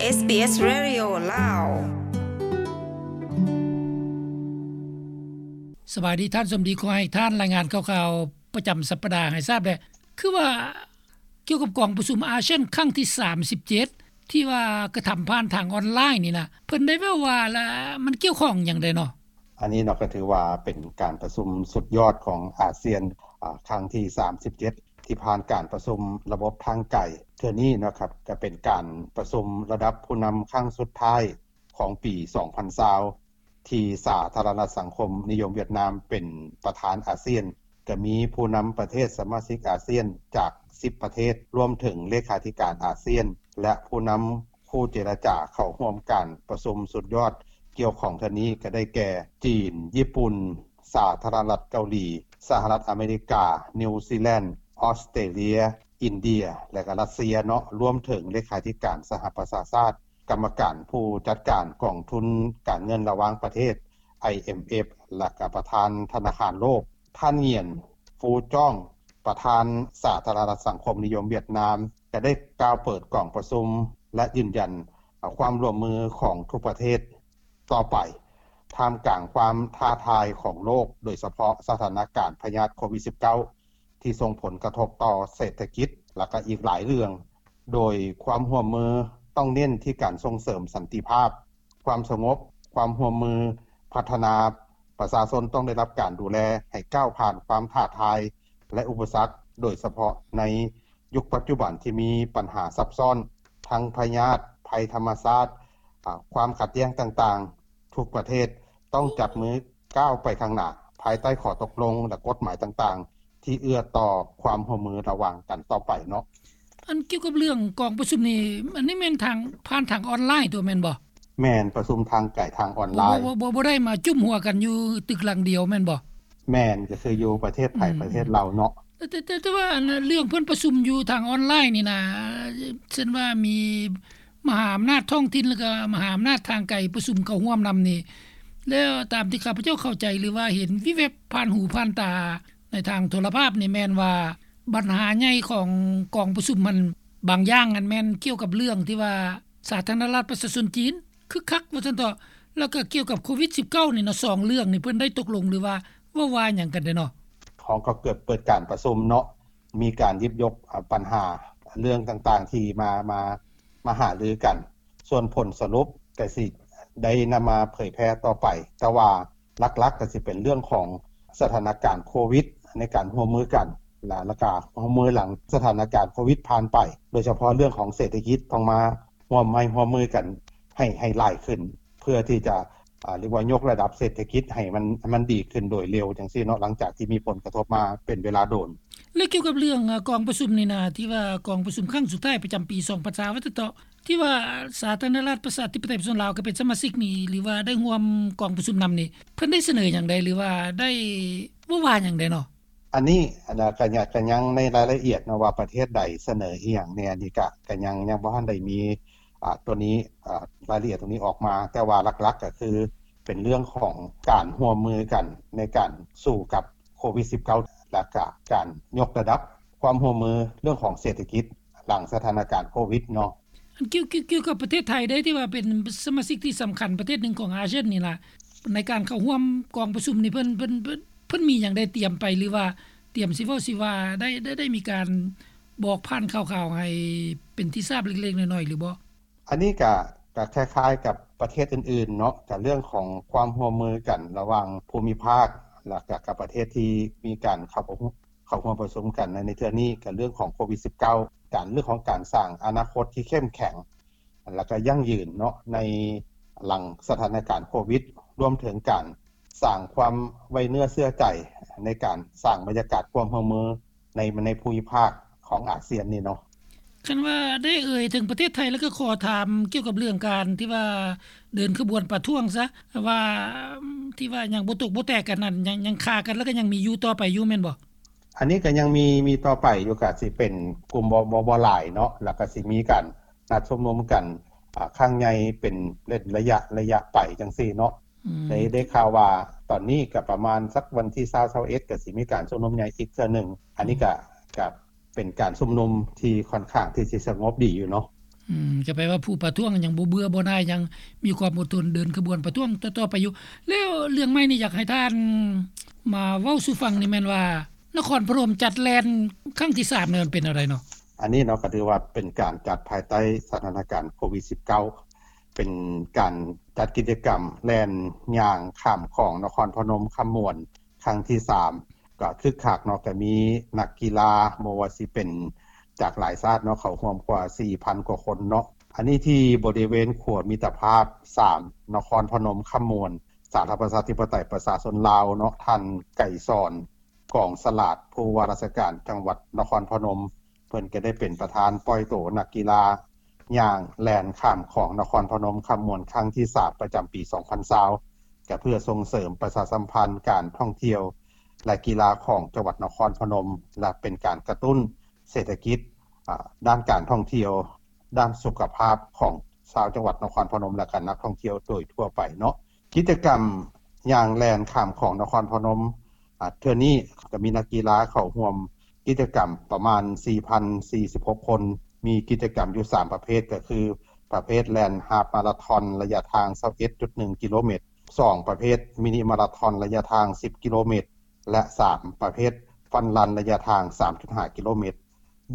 ເອສບີເອສ Radio ລາວ. ສະບາຍດີທ່ານສົມດີ, ຂໍໃຫ້ທ່ານລາຍງານຂ່າວໆປະຈຳສັບປະດາໃຫ້ຊາບແດ່. ຄືວ່າກ່ຽວກັບກອງປະຊຸມອາຊຽນຄັ້ງທີສາມສິບເຈັດ ທີ່ວ່າກະທຳຜ່ານທາງອອນລາຍນີ້ນະ, ເພິ່ນໄດ້ເວົ້າວ່າລະ ມັນກ່ຽວຂ້ອງຫຍັງແດ່ເນາະ? ອັນນີ້ເນາະ ກໍຖືວ່າເປັນການປະຊຸມສຸດຍອດຂອງອາຊຽນ ອາ ຄັ້ງທີສາມສິບເຈັດ ທີ່ຜ່ານການປະຊຸມລະບົບທາງໄກເທື່ອນີ້ເນາະຄັບ, ກໍເປັນການປະຊຸມລະດັບຜູ້ນຳຄັ້ງສຸດທ້າຍຂອງປີສອງພັນຊາວ ທີ່ສາທາລະນະລັດສັງຄົມນິຍົມຫວຽດນາມເປັນປະທານອາຊຽນ, ກໍມີຜູ້ນຳປະເທດສະມາຊິກອາຊຽນຈາກສິບປະເທດ, ລວມເຖິງເລຂາທິການອາຊຽນ ແລະ ຜູ້ນຳຄູ່ເຈລະຈາເຂົ້າຮ່ວມການປະຊຸມສຸດຍອດກ່ຽວຂ້ອງເທື່ອນີ້ ກໍໄດ້ແກ່ ຈີນ, ຍີ່ປຸ່ນ, ສາທາລະນະລັດເກົາຫຼີ, ສະຫະລັດອາເມລິກາ, ນິວຊີແລນ, ອອສເຕຣເລຍ, ອິນເດຍ ແລະ ກໍຣັດເຊຍເນາະ, ລວມເຖິງເລຂາທິການສະຫະປະຊາຊາດ, ກຳມະການຜູ້ຈັດການກອງທຶນການເງິນລະຫວ່າງປະເທດ ໄອເອັມເອັຟ ແລະ ກໍປະທານທະນາຄານໂລກ. ທ່ານ ຫງຽນ ຟູຈ້ອງ ປະທານສາທາລະນະລັດສັງຄົມນິຍົມຫວຽດນາມ ກໍໄດ້ກ່າວເປີດກອງປະຊຸມ ແລະ ຢືນຢັນຄວາມຮ່ວມມືຂອງທຸກປະເທດຕໍ່ໄປ ທ່າມກາງຄວາມທ້າທາຍຂອງໂລກ, ໂດຍສະເພາະສະຖານະການພະຍາດໂຄວິດສິບເກົ້າ ທີ່ສົ່ງຜົນກະທົບຕໍ່ເສດຖະກິດ ແລະ ກໍອີກຫຼາຍເລື່ອງ, ໂດຍຄວາມຮ່ວມມືຕ້ອງເນັ້ນທີ່ການສົ່ງເສີມສັນຕິພາບ, ຄວາມສະຫງົບ, ຄວາມຮ່ວມມືພັດທະນາ, ປະຊາຊົນຕ້ອງໄດ້ຮັບການດູແລໃຫ້ກ້າວຜ່ານຄວາມທ້າທາຍ ແລະ ອຸປະສັກ, ໂດຍສະເພາະໃນຍຸກປັດຈຸບັນທີ່ມີບັນຫາຊັບຊ້ອນ ທັງພະຍາດ, ໄພທຳມະຊາດ, ອາ, ຄວາມຂັດແຍ່ງຕ່າງໆ, ທຸກປະເທດຕ້ອງຈັບມືກ້າວໄປຂ້າງໜ້າ ພາຍໃຕ້ຂໍ້ຕົກລົງ ແລະ ກົດໝາຍຕ່າງໆ ທີ່ເອື້ອຕໍ່ຄວາມຮ່ວມມືລະຫວ່າງກັນຕໍ່ໄປເນາະ. ອັນກ່ຽວກັບເລື່ອງກອງປະຊຸມນີ້ ອັນນີ້ແມ່ນທາງ ຜ່ານທາງອອນລາຍຕົວະແມ່ນບໍ່? ແມ່ນ, ປະຊຸມທາງໄກທາງອອນລາຍ. ບໍ່ ບໍ່ ບໍ່ ບໍ່ໄດ້ມາຈຸ້ມຫົວກັນຢູ່ຕຶກຫຼັງດຽວແມ່ນບໍ່? ແມ່ນ, ກໍຄືຢູ່ປະເທດໃຜ ອືມ ປະເທດລາວເນາະ. ແຕ່ ແຕ່ ແຕ່ວ່າອັນເລື່ອງເພິ່ນປະຊຸມຢູ່ທາງອອນລາຍນີ້ນະ, ເຊັ່ນວ່າມີມະຫາອຳນາດທ້ອງຖິ່ນ ແລ້ວກໍມະຫາອຳນາດທາງໄກປະຊຸມເຂົ້າຮ່ວມນຳນີ້, ແລ້ວຕາມທີ່ຂ້າພະເຈົ້າເຂົ້າໃຈ ຫຼືວ່າເຫັນວິບແວບຜ່ານຫູຜ່ານຕາ ໃນທາງໂທລະພາບນີ້ແມ່ນວ່າ ບັນຫາໃຫຍ່ຂອງກອງປະຊຸມຫັ້ນ ບາງຢ່າງຫັ້ນແມ່ນກ່ຽວກັບເລື່ອງທີ່ວ່າສາທາລະນະລັດປະຊາຊົນຈີນຄຶກຄັກວ່າຊັ້ນເຖາະ, ແລ້ວກໍກ່ຽວກັບໂຄວິດສິບເກົ້ານີ້ເນາະ, ສອງເລື່ອງນີ້ເພິ່ນໄດ້ຕົກລົງ ຫຼືວ່າເວົ້າວ່າຫຍັງກັນແດ່ເນາະ? ເຮົາກໍເກີດເປີດການປະຊຸມເນາະ, ມີການຫຍິບຍົກ ອາ ບັນຫາເລື່ອງຕ່າງໆທີ່ມາ ມາ ມາຫາລືກັນ. ສ່ວນຜົນສະຫຼຸບກໍຊິໄດ້ນຳມາເຜີຍແຜ່ຕໍ່ໄປ, ແຕ່ວ່າຫຼັກໆກໍຊິເປັນເລື່ອງຂອງສະຖານະການໂຄວິດໃນການຮ່ວມມືກັນ ແລະ ແລ້ວກໍຮ່ວມມືຫຼັງສະຖານະການໂຄວິດຜ່ານໄປ, ໂດຍສະເພາະເລື່ອງຂອງເສດຖະກິດຕ້ອງມາຮ່ວມໄມ້ຮ່ວມມືກັນໃຫ້ ໃຫ້ຫຼາຍຂຶ້ນ ເພື່ອທີ່ຈະ ອາ ເອີ້ນວ່າຍົກລະດັບເສດຖະກິດໃຫ້ມັນ ໃຫ້ມັນດີຂຶ້ນໂດຍເລັວຈັ່ງຊີ້ເນາະ, ຫຼັງຈາກທີ່ມີຜົນກະທົບມາເປັນເວລາດົນ. ແລະ ກ່ຽວກັບເລື່ອງ ອາ ກອງປະຊຸມນີ້ນະ ທີ່ວ່າກອງປະຊຸມຄັ້ງສຸດທ້າຍປະຈຳປີສອງພັນຊາວ ວ່າຊັ້ນເຖາະ, ທີ່ວ່າສາທາລະນະລັດປະຊາທິປະໄຕປະຊາຊົນລາວກໍເປັນສະມາຊິກນີ້ ຫຼືວ່າໄດ້ຮ່ວມກອງປະຊຸມນຳນີ້ ເພິ່ນໄດ້ສະເໜີຫຍັງໃດ ຫຼືວ່າໄດ້ເວົ້າວ່າຫຍັງໃດເນາະ? ອັນນີ້ ອັນນະ ກະຍັງ ກະຍັງໃນລາຍລະອຽດເນາະ ວ່າປະເທດໃດສະເໜີອີ່ຫຍັງແດ່ ອັນນີ້ກະ ກະຍັງ ຍັງບໍ່ທັນໄດ້ມີ ອາ ຕົວນີ້ ອາ ລາຍລະອຽດຕົວນີ້ອອກມາ, ແຕ່ວ່າຫຼັກໆກໍຄືເປັນເລື່ອງຂອງການຮ່ວມມືກັນໃນການສູ້ກັບໂຄວິດສິບເກົ້າ ແລະກະການຍົກລະດັບຄວາມຮ່ວມມືເລື່ອງຂອງເສດຖະກິດຫຼັງສະຖານະການໂຄວິດເນາະ. ອັນກ່ຽວ ກ່ຽວ ກ່ຽວກັບປະເທດໄທເດ້ ທີ່ວ່າເປັນສະມາຊິກທີ່ສຳຄັນປະເທດໜຶ່ງຂອງອາຊຽນນີ້ລະ ໃນການເຂົ້າຮ່ວມກອງປະຊຸມນີ້ ເພິ່ນ ເພິ່ນ ເພິ່ນ ເພິ່ນມີຫຍັງໄດ້ຕຽມໄປ ຫຼືວ່າຕຽມຊິເວົ້າຊິວ່າ ໄດ້ ໄດ້ ໄດ້ມີການບອກຜ່ານຂ່າວໆໃຫ້ເປັນທີ່ຊາບເລັກໆນ້ອຍໆຫຼືບໍ່? ອັນນີ້ກະ ກະຄ້າຍໆກັບປະເທດອື່ນໆເນາະ, ກະເລື່ອງຂອງຄວາມຮ່ວມມືກັນລະຫວ່າງພູມິພາກ ແລະກະກັບປະເທດທີ່ມີການເຂົ້າ ເຂົ້າຮ່ວມປະຊຸມກັນໃນ ໃນເທື່ອນີ້ ກະເລື່ອງຂອງໂຄວິດສິບເກົ້າ ການ ເລື່ອງຂອງການສ້າງອະນາຄົດທີ່ເຂັ້ມແຂງ ແລະກະຢັ້ງຢືນເນາະ ໃນຫຼັງສະຖານະການໂຄວິດ, ລວມເຖິງການສ້າງຄວາມໄວ້ເນື້ອເຊື່ອໃຈ ໃນການສ້າງບັນຍາກາດຄວາມຮ່ວມມື ໃນ ໃນພູມິພາກຂອງອາຊຽນນີ້ເນາະ. ຄັນວ່າໄດ້ເອີ່ຍເຖິງປະເທດໄທ ແລ້ວກໍຂໍຖາມກ່ຽວກັບເລື່ອງການທີ່ວ່າເດີນຂະບວນປະທ້ວງຊະ ວ່າ ທີ່ວ່າຍັງບໍ່ຕົກບໍ່ແຕກກັນນັ້ນ ຍັງ ຍັງຄາກັນ ແລ້ວກໍຍັງມີຢູ່ຕໍ່ໄປຢູ່ແມ່ນບໍ່? ອັນນີ້ກໍຍັງມີ ມີຕໍ່ໄປຢູ່, ກໍຊິເປັນກຸ່ມບໍ່ ບໍ່ ບໍ່ຫຼາຍເນາະ, ແລ້ວກໍຊິມີການນັດຊຸມນຸມກັນ ອາ ຄັ້ງໃຫຍ່ເປັນ ເປັນໄລຍະ ໄລຍະໄປຈັ່ງຊີ້ເນາະ. ອືມ ໄດ້ ໄດ້ຂ່າວວ່າຕອນນີ້ກໍປະມານສັກວັນທີຊາວ ຊາວເອັດ ກໍຊິມີການຊຸມນຸມໃຫຍ່ອີກເທື່ອໜຶ່ງ. ອັນນີ້ກໍ ອືມ ກໍເປັນການຊຸມນຸມທີ່ຂ້ອນຂ້າງທີ່ຊິສະຫງົບດີຢູ່ເນາະ. ອືມ ກໍແປວ່າຜູ້ປະທ້ວງຍັງບໍ່ເບື່ອບໍ່ໜ່າຍ ຍັງມີຄວາມອົດທົນເດີນຂະບວນປະທ້ວງຕໍ່ໆໄປຢູ່. ແລ້ວເລື່ອງໃໝ່ນີ້ ຢາກໃຫ້ທ່ານມາເວົ້າສູ່ຟັງນີ້ແມ່ນວ່າ ນະຄອນພະນົມຈັດແລ່ນຄັ້ງທີສາມນີ້ ມັນເປັນແນວໃດເນາະ? ອັນນີ້ເນາະ ກໍຖືວ່າເປັນການຈັດພາຍໃຕ້ສະຖານະການໂຄວິດສິບເກົ້າ ເປັນການຈັດກິດຈະກຳແລ່ນຍ່າງຂ້າມຂອງນະຄອນພະນົມຄຳມ່ວນ ຄັ້ງທີສາມ ກໍຄຶກຄັກເນາະ ກໍມີນັກກິລາ ບໍ່ວ່າຊິເປັນຈາກຫຼາຍຊາດເນາະ ເຂົ້າຮ່ວມກວ່າສີ່ພັນກວ່າຄົນເນາະ. ອັນນີ້ທີ່ບໍລິເວນຂົວມິດຕະພາບສາມ ນະຄອນພະນົມຄຳມ່ວນ ສາທາລະນະລັດປະຊາທິປະໄຕປະຊາຊົນລາວເນາະ, ທ່ານ ໄກສອນ ກອງສະຫຼາດ ຜູ້ວ່າລາຊະການຈັງຫວັດນະຄອນພະນົມ ເພິ່ນກໍໄດ້ເປັນປະທານປ່ອຍໂຕນັກກິລາຍ່າງແລ່ນຂ້າມຂອງນະຄອນພະນົມຄຳມ່ວນ ຄັ້ງທີສາມ ປະຈຳປີສອງພັນຊາວ ກໍເພື່ອສົ່ງເສີມປະຊາສຳພັນການທ່ອງທ່ຽວ ແລະ ກິລາຂອງຈັງຫວັດນະຄອນພະນົມ ແລະ ເປັນການກະຕຸ້ນເສດຖະກິດ ອາ ດ້ານການທ່ອງທ່ຽວ ດ້ານສຸຂະພາບຂອງຊາວຈັງຫວັດນະຄອນພະນົມ ແລະ ກະນັກທ່ອງທ່ຽວໂດຍທົ່ວໄປເນາະ. ກິດຈະກຳຍ່າງແລ່ນຂ້າມຂອງນະຄອນພະນົມ ອາ ເທື່ອນີ້ກໍມີນັກກິລາເຂົ້າຮ່ວມກິດຈະກຳປະມານສີ່ພັນສີ່ສິບຫົກຄົນ, ມີກິດຈະກຳຢູ່ສາມປະເພດ ກໍຄືປະເພດແລ່ນຮາບມາລາທອນໄລຍະທາງຊາວເອັດຈຸດໜຶ່ງກິໂລແມັດ, ສອງ ປະເພດມິນິມາລາທອນໄລຍະທາງສິບກິໂລແມັດ ແລະ ສາມ ປະເພດຟັນຣັນໄລຍະທາງສາມຈຸດຫ້າກິໂລແມັດ.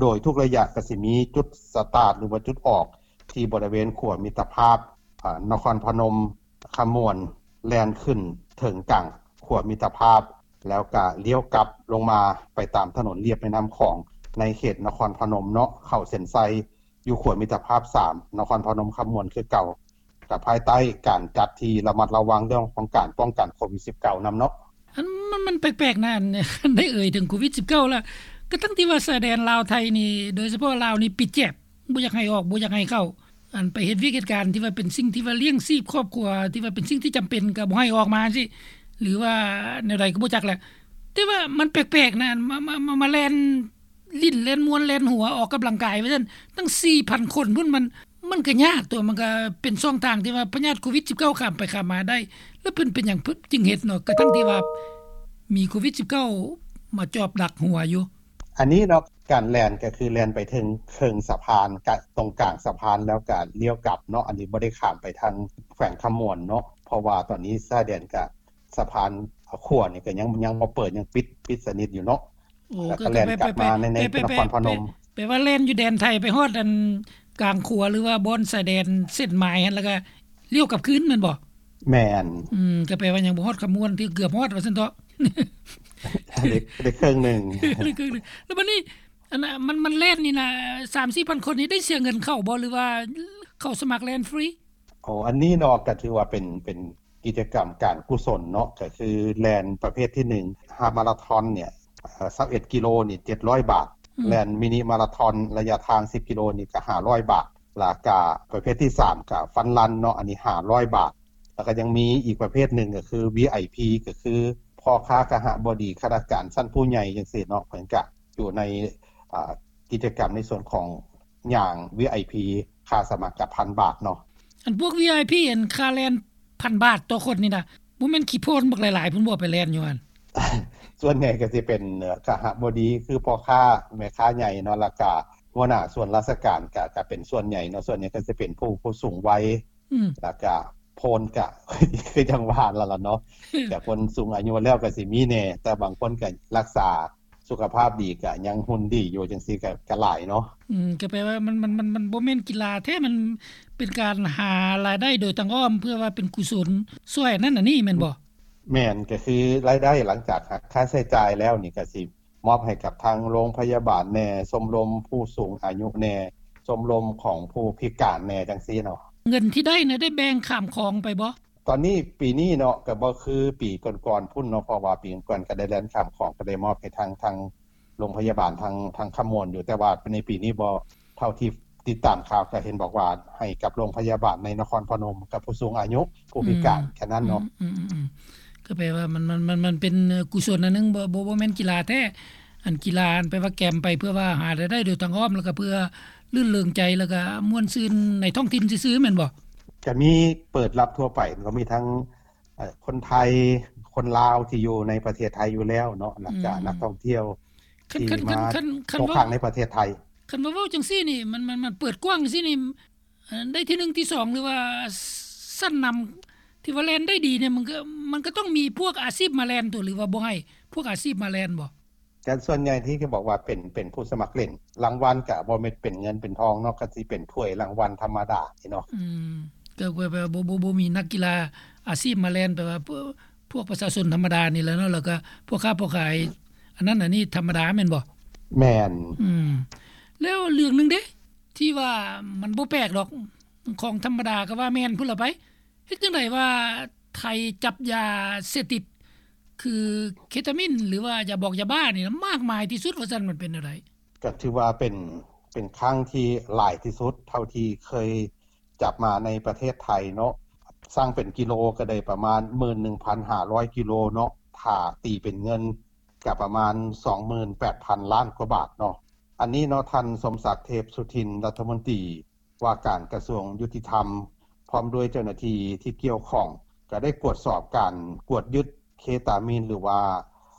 ໂດຍທຸກໄລຍະກໍຊິມີຈຸດສະຕາດ ຫຼືວ່າຈຸດອອກ ທີ່ບໍລິເວນຂົວມິດຕະພາບ ອາ ນະຄອນພະນົມຄຳມ່ວນ ແລ່ນຂຶ້ນເຖິງກາງຂົວມິດຕະພາບ ແລ້ວກະລ້ຽວກັບລົງມາໄປຕາມຖະໜົນລຽບແມ່ນ້ຳຂອງ ໃນເຂດນະຄອນພະນົມເນາະ, ເຂົ້າເສັ້ນໄຊຢູ່ຂົວມິດຕະພາບສາມ ນະຄອນພະນົມຄຳມ່ວນຄືເກົ່າ. ກໍພາຍໃຕ້ການຈັດທີ່ລະມັດລະວັງເລື່ອງຂອງການປ້ອງກັນໂຄວິດສິບເກົ້ານຳເນາະ. ອັນມັນ ມັນແປກໆນະ ອັນໄດ້ເອີ່ຍເຖິງໂຄວິດສິບເກົ້າລະ ກະທັງທີ່ວ່າຊາຍແດນລາວໄທນີ້ ໂດຍສະເພາະລາວນີ້ປິດແຈບ ບໍ່ຢາກໃຫ້ອອກ ບໍ່ຢາກໃຫ້ເຂົ້າ ອັນໄປເຮັດວຽກເຮັດການທີ່ວ່າເປັນສິ່ງທີ່ວ່າລ້ຽງຊີບຄອບຄົວ ທີ່ວ່າເປັນສິ່ງທີ່ຈຳເປັນ ກະບໍ່ໃຫ້ອອກມາຈັ່ງຊີ້ ຫຼືວ່າແນວໃດກໍບໍ່ຈັກແຫຼະ. ແຕ່ວ່າມັນແປກໆນະ ມາ ມາ ມາ ມາແລ່ນ ຫຼິ້ນແລ່ນມ່ວນແລ່ນຫົວອອກກຳລັງກາຍວ່າຊັ້ນ ຕັ້ງສີ່ພັນຄົນພຸ້ນ ມັນ ມັນກໍຍາກຕົວະ ມັນກໍເປັນຊ່ອງທາງທີ່ວ່າພະຍາດໂຄວິດສິບເກົ້າຂ້າມໄປຂ້າມມາໄດ້ ແລ້ວເພິ່ນເປັນຫຍັງເພິ່ນຈຶ່ງເຮັດເນາະ ກະທັງທີ່ວ່າມີໂຄວິດສິບເກົ້າມາຈອບດັກຫົວຢູ່. ອັນນີ້ເນາະ ການແລ່ນກໍຄືແລ່ນໄປເຖິງເຄິ່ງສະພານ ກະ ຕົງກາງສະພານ ແລ້ວກະລ້ຽວກັບເນາະ ອັນນີ້ບໍ່ໄດ້ຂ້າມໄປທາງແຂວງຄຳມ່ວນເນາະ ເພາະວ່າຕອນນີ້ຊາຍແດນກະ ສະພານຂົວນີ້ກໍຍັງ ຍັງບໍ່ເປີດ ຍັງປິດ ປິດສະໜິດຢູ່ເນາະ. ໂອ້ ແລ້ວກໍແລ່ນກັບມາໃນ ໃນນະຄອນພະນົມ ແປວ່າແລ່ນຢູ່ແດນໄທໄປຮອດອັນກາງຂົວ ຫຼືວ່າບ່ອນຊາຍແດນເສັ້ນໝາຍຫັ້ນ ແລ້ວກໍລ້ຽວກັບຄືນແມ່ນບໍ່? ແມ່ນ. ອືມ ກໍແປວ່າຍັງບໍ່ຮອດຄຳມ່ວນ ທີ່ເກືອບຮອດວ່າຊັ້ນເຖາະ ໄດ້ ໄດ້ເຄິ່ງໜຶ່ງ ໄດ້ເຄິ່ງໜຶ່ງ. ແລ້ວບັດນີ້ ອັນ ມັນ ມັນແລ່ນນີ້ນະ ສາມສີ່ພັນຄົນນີ້ ໄດ້ເສຍເງິນເຂົ້າບໍ່ ຫຼືວ່າເຂົ້າສະໝັກແລ່ນຟຣີ? ໂອ້ ອັນນີ້ເນາະ ກໍຖືວ່າເປັນ ເປັນ ກິດຈະກຳການກຸສົນເນາະ ກໍຄືແລ່ນປະເພດທີໜຶ່ງ ຮາບມາລາທອນເນ່ຍ ເອີ່ ຊາວເອັດກິໂລນີ້ເຈັດຮ້ອຍບາດ, ອືມ ແລ່ນມິນິມາລາທອນໄລຍະທາງສິບກິໂລນີ້ກໍຫ້າຮ້ອຍບາດ, ແລ້ວກະປະເພດທີສາມກໍຟັນຣັນເນາະ ອັນນີ້ຫ້າຮ້ອຍບາດ, ແລ້ວກໍຍັງມີອີກປະເພດໜຶ່ງກໍຄື ວີໄອພີ ກໍຄືພໍ່ຄ້າຄະຫະບໍດີ ຂ້າລາຊະການຊັ້ນຜູ້ໃຫຍ່ຈັ່ງຊີ້ເນາະ ເພິ່ນກະຢູ່ໃນ ອາ ກິດຈະກຳໃນສ່ວນຂອງ ຍ່າງ ວີໄອພີ ຄ່າສະໝັກກະພັນບາດເນາະ. ອັນພວກ ວີໄອພີ ອັນຄ່າແລ່ນພັນບາດຕໍ່ຄົນນີ້ນະ ບໍ່ແມ່ນຂີ້ໂພນບັກຫຼາຍໆພຸ້ນບໍ່ ໄປແລ່ນຢູ່ຫັ້ນ? ສ່ວນໃຫຍ່ກໍຊິເປັນ ເອີ່ ຄະຫະບໍດີ ຄືພໍ່ຄ້າແມ່ຄ້າໃຫຍ່ເນາະ ແລ້ວກະຫົວໜ້າສ່ວນລາຊະການ ກະ ກະເປັນສ່ວນໃຫຍ່ເນາະ, ສ່ວນໃຫຍ່ກໍຊິເປັນຜູ້ ຜູ້ສູງໄວ ອືມ ແລ້ວກະໂພນກະ ຄືຈັ່ງວ່າຫັ້ນລະເນາະ ແຕ່ຄົນສູງອາຍຸແລ້ວກໍຊິມີແດ່ ແຕ່ບາງຄົນກໍຮັກສາ ສຸຂະພາບດີ ກະຍັງຫຸ່ນດີຢູ່ຈັ່ງຊີ້ ກະ ກະຫຼາຍເນາະ. ອືມ ກໍແປວ່າມັນ ມັນ ມັນ ມັນບໍ່ແມ່ນກິລາແທ້ ມັນເປັນການຫາລາຍໄດ້ໂດຍທາງອ້ອມ ເພື່ອວ່າເປັນກຸສົນຊ່ວຍອັນນັ້ນອັນນີ້ແມ່ນບໍ່? ແມ່ນ ກໍຄືລາຍໄດ້ຫຼັງຈາກຫັກຄ່າໃຊ້ຈ່າຍແລ້ວນີ້ ກໍຊິມອບໃຫ້ກັບທາງໂຮງພະຍາບານແດ່, ຊົມລົມຜູ້ສູງອາຍຸແດ່, ຊົມລົມຂອງຜູ້ພິການແດ່ ຈັ່ງຊີ້ເນາະ. ເງິນທີ່ໄດ້ນະ ໄດ້ແບ່ງຂ້າມຂອງໄປບໍ່? ຕອນນີ້ ປີນີ້ເນາະ ກໍບໍ່ຄືປີກ່ອນໆພຸ້ນເນາະ ເພາະວ່າປີກ່ອນໆກໍໄດ້ແລ່ນຂ້າມຂອງ ກໍໄດ້ມອບໃຫ້ທາງ ທາງໂຮງພະຍາບານ ທາງ ທາງຄຳມ່ວນຢູ່ ແຕ່ວ່າໃນປີນີ້ບໍ່ ເທົ່າທີ່ຕິດຕາມຂ່າວກໍເຫັນບອກວ່າໃຫ້ກັບໂຮງພະຍາບານໃນນະຄອນພະນົມ ກັບຜູ້ສູງອາຍຸ ຜູ້ພິການ ອືມ ແຄ່ນັ້ນເນາະ. ອືມ ອືມ ອືມ ກໍແປວ່າມັນ ມັນ ມັນ ມັນເປັນ ເອີ່ ກຸສົນອັນໜຶ່ງ ບໍ່ ບໍ່ ບໍ່ແມ່ນກິລາແທ້ ອັນກິລາ ອັນແປວ່າແກມໄປເພື່ອວ່າຫາລາຍໄດ້ໂດຍທາງອ້ອມ ແລ້ວກໍເພື່ອລື່ນເລີງໃຈ ແລ້ວກໍມ່ວນຊື່ນໃນທ້ອງຖິ່ນຊື່ໆ ແມ່ນບໍ່? ກໍມີເປີດຮັບທົ່ວໄປ ກໍມີທັງ ເອີ່ ຄົນໄທ ຄົນລາວທີ່ຢູ່ໃນປະເທດໄທຢູ່ແລ້ວເນາະ ແລ້ວກະ ອືມ ນັກທ່ອງທ່ຽວທີ່ມາຕົກຄ້າງໃນປະເທດໄທ. ຄັນວ່າເວົ້າຈັ່ງຊີ້ນີ້ ມັນ ມັນ ມັນເປີດກວ້າງຊີ້ນີ້ ເອີ ໄດ້ທີໜຶ່ງ ທີສອງ ຫຼືວ່າຊັ້ນນຳ ທີ່ວ່າແລ່ນໄດ້ດີນີ້ ມັນກໍ ມັນກໍຕ້ອງມີພວກອາຊີບມາແລ່ນຕົວະ ຫຼືວ່າບໍ່ໃຫ້ພວກອາຊີບມາແລ່ນບໍ່? ແຕ່ສ່ວນໃຫຍ່ທີ່ເຂົາບອກວ່າເປັນ ເປັນຜູ້ສະໝັກຫຼິ້ນ ລາງວັນກະບໍ່ແມ່ນເປັນເງິນເປັນທອງເນາະ ກະຊິເປັນຖ້ວຍລາງວັນທຳມະດາເນາະ. ອືມ ກໍແບບວ່າບໍ່ ບໍ່ ບໍ່ມີນັກກິລາອາຊີບມາແລ່ນ ແບບວ່າພວກ ພວກປະຊາຊົນທຳມະດານີ້ແຫຼະເນາະ ແລ້ວກໍພໍ່ຄ້າພໍ່ຂາຍ ອັນນັ້ນອັນນີ້ທຳມະດາແມ່ນບໍ່? ແມ່ນ. ອືມ ແລ້ວເລື່ອງໜຶ່ງເດ້ ທີ່ວ່າມັນບໍ່ແປກດອກ ຂອງທຳມະດາກໍວ່າແມ່ນພຸ້ນລະໄປ ເຮັດຈັ່ງໃດວ່າໄທຈັບຢາເສບຕິດ ຄືເຄຕາມິນ ຫຼືວ່າຢາບອກຢາບ້ານີ້ນະ ມາກມາຍທີ່ສຸດວ່າຊັ້ນ ມັນເປັນແນວໃດ? ກໍຖືວ່າເປັນ ເປັນຄັ້ງທີ່ຫຼາຍທີ່ສຸດເທົ່າທີ່ເຄີຍຈັບມາໃນປະເທດໄທເນາະ ຊັ່ງເປັນກິໂລກໍໄດ້ປະມານ ໝື່ນໜຶ່ງພັນຫ້າຮ້ອຍກິໂລເນາະ ຖ້າຕີເປັນເງິນກໍປະມານ ສອງໝື່ນແປດພັນລ້ານກວ່າບາດເນາະ. ອັນນີ້ເນາະ ທ່ານ ສົມສັກ ເທບສຸທິນ ລັດຖະມົນຕີ ວ່າການກະຊວງຍຸຕິທຳ ພ້ອມດ້ວຍເຈົ້າໜ້າທີ່ທີ່ກ່ຽວຂ້ອງ ກໍໄດ້ກວດສອບການກວດຍຶດເຄຕາມິນ ຫຼືວ່າ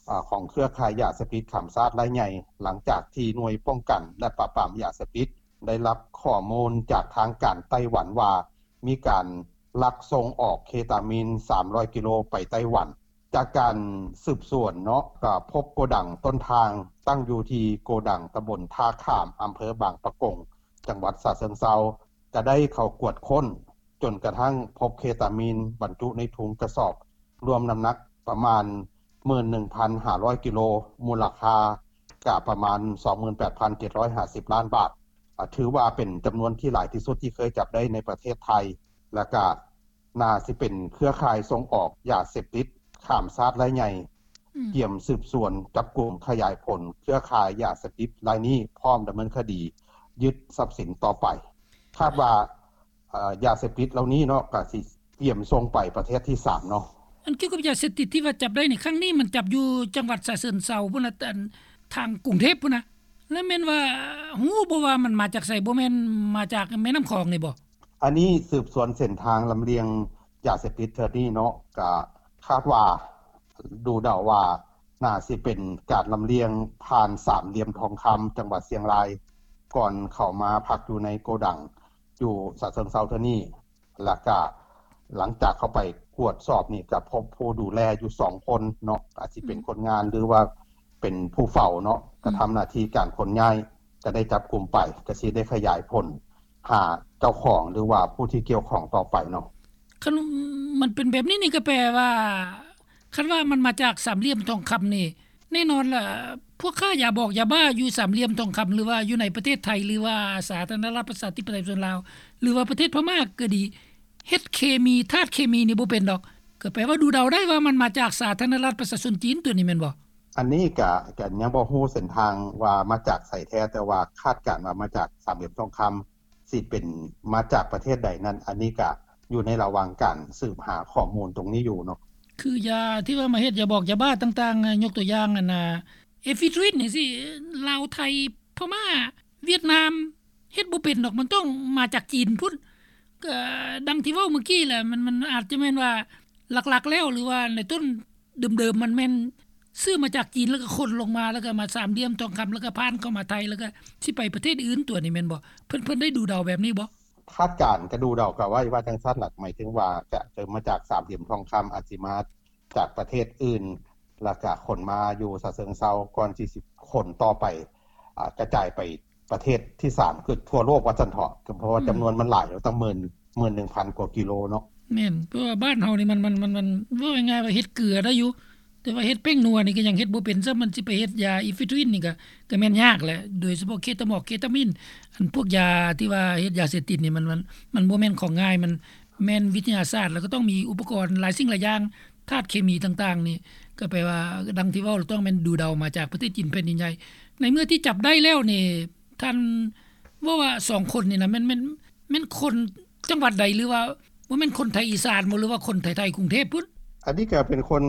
ອາ ຂອງເຄືອຂ່າຍຢາເສບຕິດຂ້າມຊາດລາຍໃຫຍ່ ຫຼັງຈາກທີ່ໜ່ວຍປ້ອງກັນ ແລະ ປາບປາມຢາເສບຕິດ ໄດ້ຮັບຂໍ້ມູນຈາກທາງການໄຕ້ຫວັນວ່າ ມີການລັກສົ່ງອອກເຄຕາມິນ ສາມຮ້ອຍກິໂລໄປໄຕ້ຫວັນ. ຈາກການສືບສວນເນາະ ກໍພົບໂກດັງຕົ້ນທາງ ຕັ້ງຢູ່ທີ່ໂກດັງຕຳບົນທ່າຂາມ ອຳເພີບາງປະກົງ ຈັງຫວັດສະເຊິງເຊົາ ກໍໄດ້ເຂົ້າກວດຄົ້ນ ຈົນກະທັ້ງພົບເຄຕາມິນບັນຈຸໃນຖົງກະສອບ ລວມນ້ຳໜັກປະມານ ໝື່ນໜຶ່ງພັນຫ້າຮ້ອຍກິໂລ ມູນລະຄ່າກະປະມານ ສອງໝື່ນແປດພັນເຈັດຮ້ອຍຫ້າສິບລ້ານບາດ ອາ ຖືວ່າເປັນຈຳນວນທີ່ຫຼາຍທີ່ສຸດທີ່ເຄີຍຈັບໄດ້ໃນປະເທດໄທ ແລະກະໜ້າຊິເປັນເຄືອຂ່າຍສົ່ງອອກຢາເສບຕິດຂ້າມຊາດລາຍໃຫຍ່ ອືມ ກຽມສືບສວນຈັບກຸມຂະຫຍາຍຜົນເຄືອຂ່າຍຢາເສບຕິດລາຍນີ້ ພ້ອມດຳເນີນຄະດີຍຶດຊັບສິນຕໍ່ໄປ. ຄາດວ່າ ເອີ ຢາເສບຕິດເຫຼົ່ານີ້ເນາະ ກະຊິກຽມສົ່ງໄປປະເທດທີສາມເນາະ. ອັນກ່ຽວກັບຢາເສບຕິດທີ່ວ່າຈັບໄດ້ໃນຄັ້ງນີ້ ມັນຈັບຢູ່ຈັງຫວັດສະເຊີນເຊົາພຸ້ນນະ ອັນທາງກຸງເທບພຸ້ນນະ ແລ້ວແມ່ນວ່າຮູ້ບໍ່ວ່າມັນມາຈາກໃສ? ບໍ່ແມ່ນມາຈາກແມ່ນ້ຳຂອງນີ້ບໍ່? ອັນນີ້ສືບສວນເສັ້ນທາງລຳລຽງຢາເສບຕິດເທື່ອນີ້ເນາະ ກະຄາດວ່າ ດູເດົາວ່າໜ້າຊິເປັນການລຳລຽງຜ່ານສາມຫຼ່ຽມທອງຄຳ ຈັງຫວັດຊຽງລາຍ ກ່ອນເຂົ້າມາພັກຢູ່ໃນໂກດັງຢູ່ສະເຊີງເຊົາເທື່ອນີ້ ແລ້ວກະຫຼັງຈາກເຂົ້າໄປກວດສອບນີ້ ກະພົບຜູ້ດູແລຢູ່ສອງຄົນເນາະ ອາດຊິເປັນ ອືມ ຄົນງານ ຫຼືວ່າເປັນຜູ້ເຝົ້າເນາະ ອືມ ກະທຳໜ້າທີ່ການຂົນຍ້າຍ ກະໄດ້ຈັບກຸມໄປ ກະຊິໄດ້ຂະຫຍາຍຜົນຫາເຈົ້າຂອງ ຫຼືວ່າຜູ້ທີ່ກ່ຽວຂ້ອງຕໍ່ໄປເນາະ. ຄັນມັນເປັນແບບນີ້ນີ້ ກໍແປວ່າ ຄັນວ່າມັນມາຈາກສາມຫຼ່ຽມທອງຄຳນີ້ ແນ່ນອນລະ ພວກຄ້າຢາບອກຢາບ້າຢູ່ສາມຫຼ່ຽມທອງຄຳ ຫຼືວ່າຢູ່ໃນປະເທດໄທ ຫຼືວ່າສາທາລະນະລັດປະຊາທິປະໄຕປະຊາຊົນລາວ ຫຼືວ່າປະເທດພະມ້າກໍດີ ເຮັດເຄມີ ທາດເຄມີນີ້ບໍ່ເປັນດອກ ກໍແປວ່າດູເດົາໄດ້ວ່າມັນມາຈາກສາທາລະນະລັດປະຊາຊົນຈີນຕົວນີ້ແມ່ນບໍ່? ອັນນີ້ກະ ກະຍັງບໍ່ຮູ້ເສັ້ນທາງວ່າມາຈາກໃສແທ້ ແຕ່ວ່າຄາດການວ່າມາຈາກສາມຫຼ່ຽມທອງຄຳ ຊິເປັນມາຈາກປະເທດໃດນັ້ນ ອັນນີ້ກະຢູ່ໃນລະຫວ່າງການສືບຫາຂໍ້ມູນຕົງນີ້ຢູ່ເນາະ. ຄືຢາທີ່ວ່າມາເຮັດຢາບອກຢາບ້າຕ່າງໆ ຍົກຕົວຢ່າງອັນນ່າ ເອຟີດຣິນຈັ່ງຊີ້ ລາວ ໄທ ພະມ້າ ຫວຽດນາມ ເຮັດບໍ່ເປັນດອກ ມັນຕ້ອງມາຈາກຈີນພຸ້ນ. ກໍດັ່ງທີ່ເວົ້າເມື່ອກີ້ແຫຼະ ມັນ ມັນອາດຈະແມ່ນວ່າຫຼັກໆແລ້ວ ຫຼືວ່າໃນຕົ້ນເດີມໆ ມັນແມ່ນຊື້ມາຈາກຈີນ ແລ້ວກໍຂົນລົງມາ ແລ້ວກໍມາສາມຫຼ່ຽມທອງຄຳ ແລ້ວກໍຜ່ານເຂົ້າມາໄທ ແລ້ວກໍຊິໄປປະເທດອື່ນຕົວນີ້ແມ່ນບໍ່? ເພິ່ນ ເພິ່ນໄດ້ດູເດົາແບບນີ້ບໍ່? ຄາດການກໍດູເດົາກໍໄວ້ວ່າຈັ່ງຊັ້ນລະ ໝາຍເຖິງວ່າຈະເລີ່ມມາຈາກສາມຫຼ່ຽມທອງຄຳ ອາດຊິມາຈາກປະເທດອື່ນ ແລ້ວກະຂົນມາຢູ່ສະເຊີງເຊົາ ກ່ອນທີ່ຊິຂົນຕໍ່ໄປ ອາ ກະຈາຍໄປປະເທດທີສາມ ຄືທົ່ວໂລກວ່າຊັ້ນເຖາະ ເພາະວ່າ ອືມ ຈຳນວນມັນຫຼາຍ ເນາະ ຕັ້ງໝື່ນ ໝື່ນໜຶ່ງພັນກວ່າກິໂລເນາະ. ແມ່ນ ເພາະວ່າບ້ານເຮົານີ້ມັນ ມັນ ມັນ ມັນ ເວົ້າງ່າຍໆວ່າເຮັດເກືອໄດ້ຢູ່ ແຕ່ວ່າເຮັດແປ້ງນົວນີ້ກໍຍັງເຮັດບໍ່ເປັນຊ້ຳ ມັນຊິໄປເຮັດຢາເອຟີດຣິນນີ້ກໍ ກໍແມ່ນຍາກແຫຼະ ໂດຍສະເພາະເຄຕາມອກ ເຄຕາມິນ ອັນພວກຢາທີ່ວ່າເຮັດຢາເສບຕິດນີ້ ມັນ ມັນ ມັນບໍ່ແມ່ນຂອງງ່າຍ ມັນແມ່ນວິທະຍາສາດ ແລ້ວກໍຕ້ອງມີອຸປະກອນຫຼາຍສິ່ງຫຼາຍຢ່າງ ທາດເຄມີຕ່າງໆນີ້ ກໍແປວ່າ ດັ່ງທີ່ເວົ້າ ຕ້ອງແມ່ນດູເດົາມາຈາກປະເທດຈີນແຜ່ນດິນໃຫຍ່. ໃນເມື່ອທີ່ຈັບໄດ້ແລ້ວນີ້ ທ່ານເວົ້າວ່າສອງຄົນນີ້ນະ ແມ່ນ ແມ່ນ ແມ່ນຄົນ ຈັງຫວັດໃດ ຫຼືວ່າບໍ່ແມ່ນຄົນໄທອີສານບໍ່ ຫຼືວ່າຄົນໄທໆກຸງເທບພຸ້ນ? ອັນນີ້ກໍເປັນຄົນ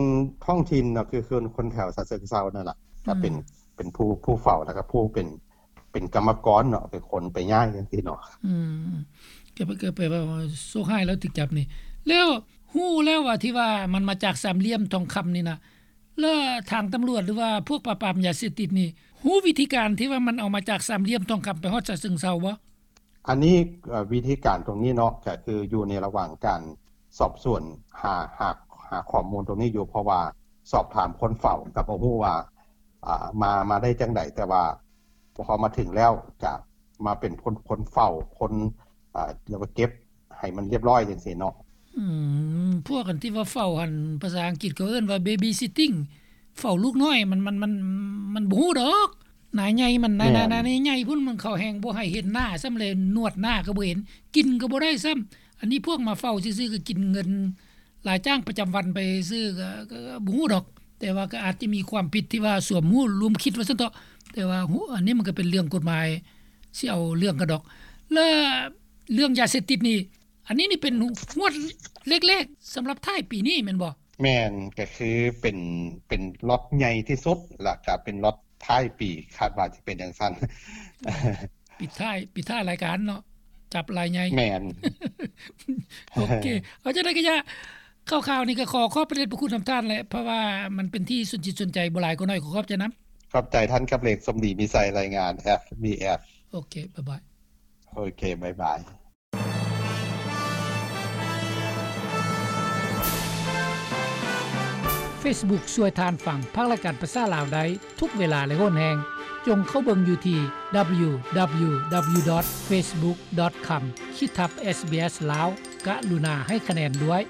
ທ້ອງຖິ່ນເນາະ ຄືຄົນ ຄົນແຖວສະເຊີງເຊົານັ້ນລະ ກໍເປັນ ອືມ ເປັນຜູ້ ຜູ້ເຝົ້າ ແລ້ວກໍຜູ້ເປັນ ເປັນກຳມະກອນເນາະ ເປັນຄົນໄປຍ້າຍຈັ່ງຊີ້ເນາະ. ອືມ ກໍ ກໍແປວ່າໂຊກຮ້າຍແລ້ວຖືກຈັບນີ້. ແລ້ວຮູ້ແລ້ວວ່າທີ່ວ່າມັນມາຈາກສາມຫຼ່ຽມທອງຄຳນີ້ນະ ແລ້ວທາງຕຳຫຼວດ ຫຼືວ່າພວກປາບປາມຢາເສບຕິດນີ້ ຮູ້ວິທີການທີ່ວ່າມັນເອົາມາຈາກສາມຫຼ່ຽມທອງຄຳໄປຮອດສະເຊິງເຊົາບໍ່? ອັນນີ້ ເອີ ວິທີການຕົງນີ້ເນາະ ກໍຄືຢູ່ໃນລະຫວ່າງການສອບສວນ ຫາ ຫາ ຫາຂໍ້ມູນຕົງນີ້ຢູ່ ເພາະວ່າສອບຖາມຄົນເຝົ້າກໍບໍ່ຮູ້ວ່າ ອ່າ ມາ ມາໄດ້ຈັ່ງໃດ ແຕ່ວ່າພໍມາເຖິງແລ້ວ ຈະມາເປັນຄົນ ຄົນເຝົ້າ ຄົນ ອ່າ ລະກະເກັບໃຫ້ມັນລຽບຮ້ອຍຈັ່ງຊີ້ເນາະ. ອືມ ພວກອັນທີ່ວ່າເຝົ້າຫັ້ນ ພາສາອັງກິດເຂົາເອີ້ນວ່າ ເບບີຊິດຕິ້ງ ເຝົ້າລູກນ້ອຍ ມັນ ມັນ ມັນ ມັນບໍ່ຮູ້ດອກ ໜ້າໃຫຍ່ມັນ ໜ້າ ແມ່ນ ໜ້າ ໜ້າໃຫຍ່ພຸ້ນ ມັນເຂົາແຮ່ງບໍ່ໃຫ້ເຫັນໜ້າຊ້ຳ ແລະ ນວດໜ້າກໍບໍ່ເຫັນ ກິນກໍບໍ່ໄດ້ຊ້ຳ. ອັນນີ້ພວກມາເຝົ້າຊື່ໆ ກໍກິນເງິນ ລາຍຈ້າງປະຈຳວັນໄປຊື່ ກໍ ກໍ ກໍບໍ່ຮູ້ດອກ ແຕ່ວ່າກໍອາດຈະມີຄວາມຜິດທີ່ວ່າສວມຮູ້ລວມຄິດວ່າຊັ້ນເຖາະ ແຕ່ວ່າ ອັນນີ້ມັນກໍເປັນເລື່ອງກົດໝາຍ ຊິເອົາເລື່ອງກັນດອກ. ແລະ ເລື່ອງຢາເສບຕິດນີ້ ອັນນີ້ນີ້ເປັນງວດແລກໆ ສຳລັບທ້າຍປີນີ້ແມ່ນບໍ່? ແມ່ນ ກໍຄືເປັນ ເປັນລັອດໃຫຍ່ທີ່ສຸດ ແລ້ວກໍເປັນລັອດທ້າຍປີ ຄາດວ່າຈະເປັນຈັ່ງຊັ້ນ. ປິດທ້າຍ ປິດທ້າຍລາຍການເນາະ ຈັບລາຍໃຫຍ່. ແມ່ນ. ໂອເຄ ເອົາຈັ່ງໃດກໍຢ່າ ຂ່າວໆນີ້ກໍຂໍຂອບພະເດດພະຄຸນນຳທ່ານແຫຼະ ເພາະວ່າມັນເປັນທີ່ສົນຈິດສົນໃຈ ບໍ່ຫຼາຍກໍໜ້ອຍ ຂໍຂອບໃຈນຳ. ຂອບໃຈທ່ານກັບເລັກ ສົມດີມີໄຊ ລາຍງານ ເອັຟບີເອັຟ. ໂອເຄ ບາຍບາຍ. ໂອເຄ ບາຍບາຍ. ເຟສບຸກຊ່ວຍທ່ານຟັງພາກລາຍການພາສາລາວໄດ້ທຸກເວລາ ແລະ ໂຫນແຮງ. ຈົ່ງເຂົ້າເບິ່ງຢູ່ທີ່ ດັບເບິນຢູດັບເບິນຢູດັບເບິນຢູ ດອດ ເຟສບຸກ ດອດ ຄອມ ຂີດທັບ ເອສບີເອສ ລາວ. ກະລຸນາໃຫ້ຄະແນນດ້ວຍ.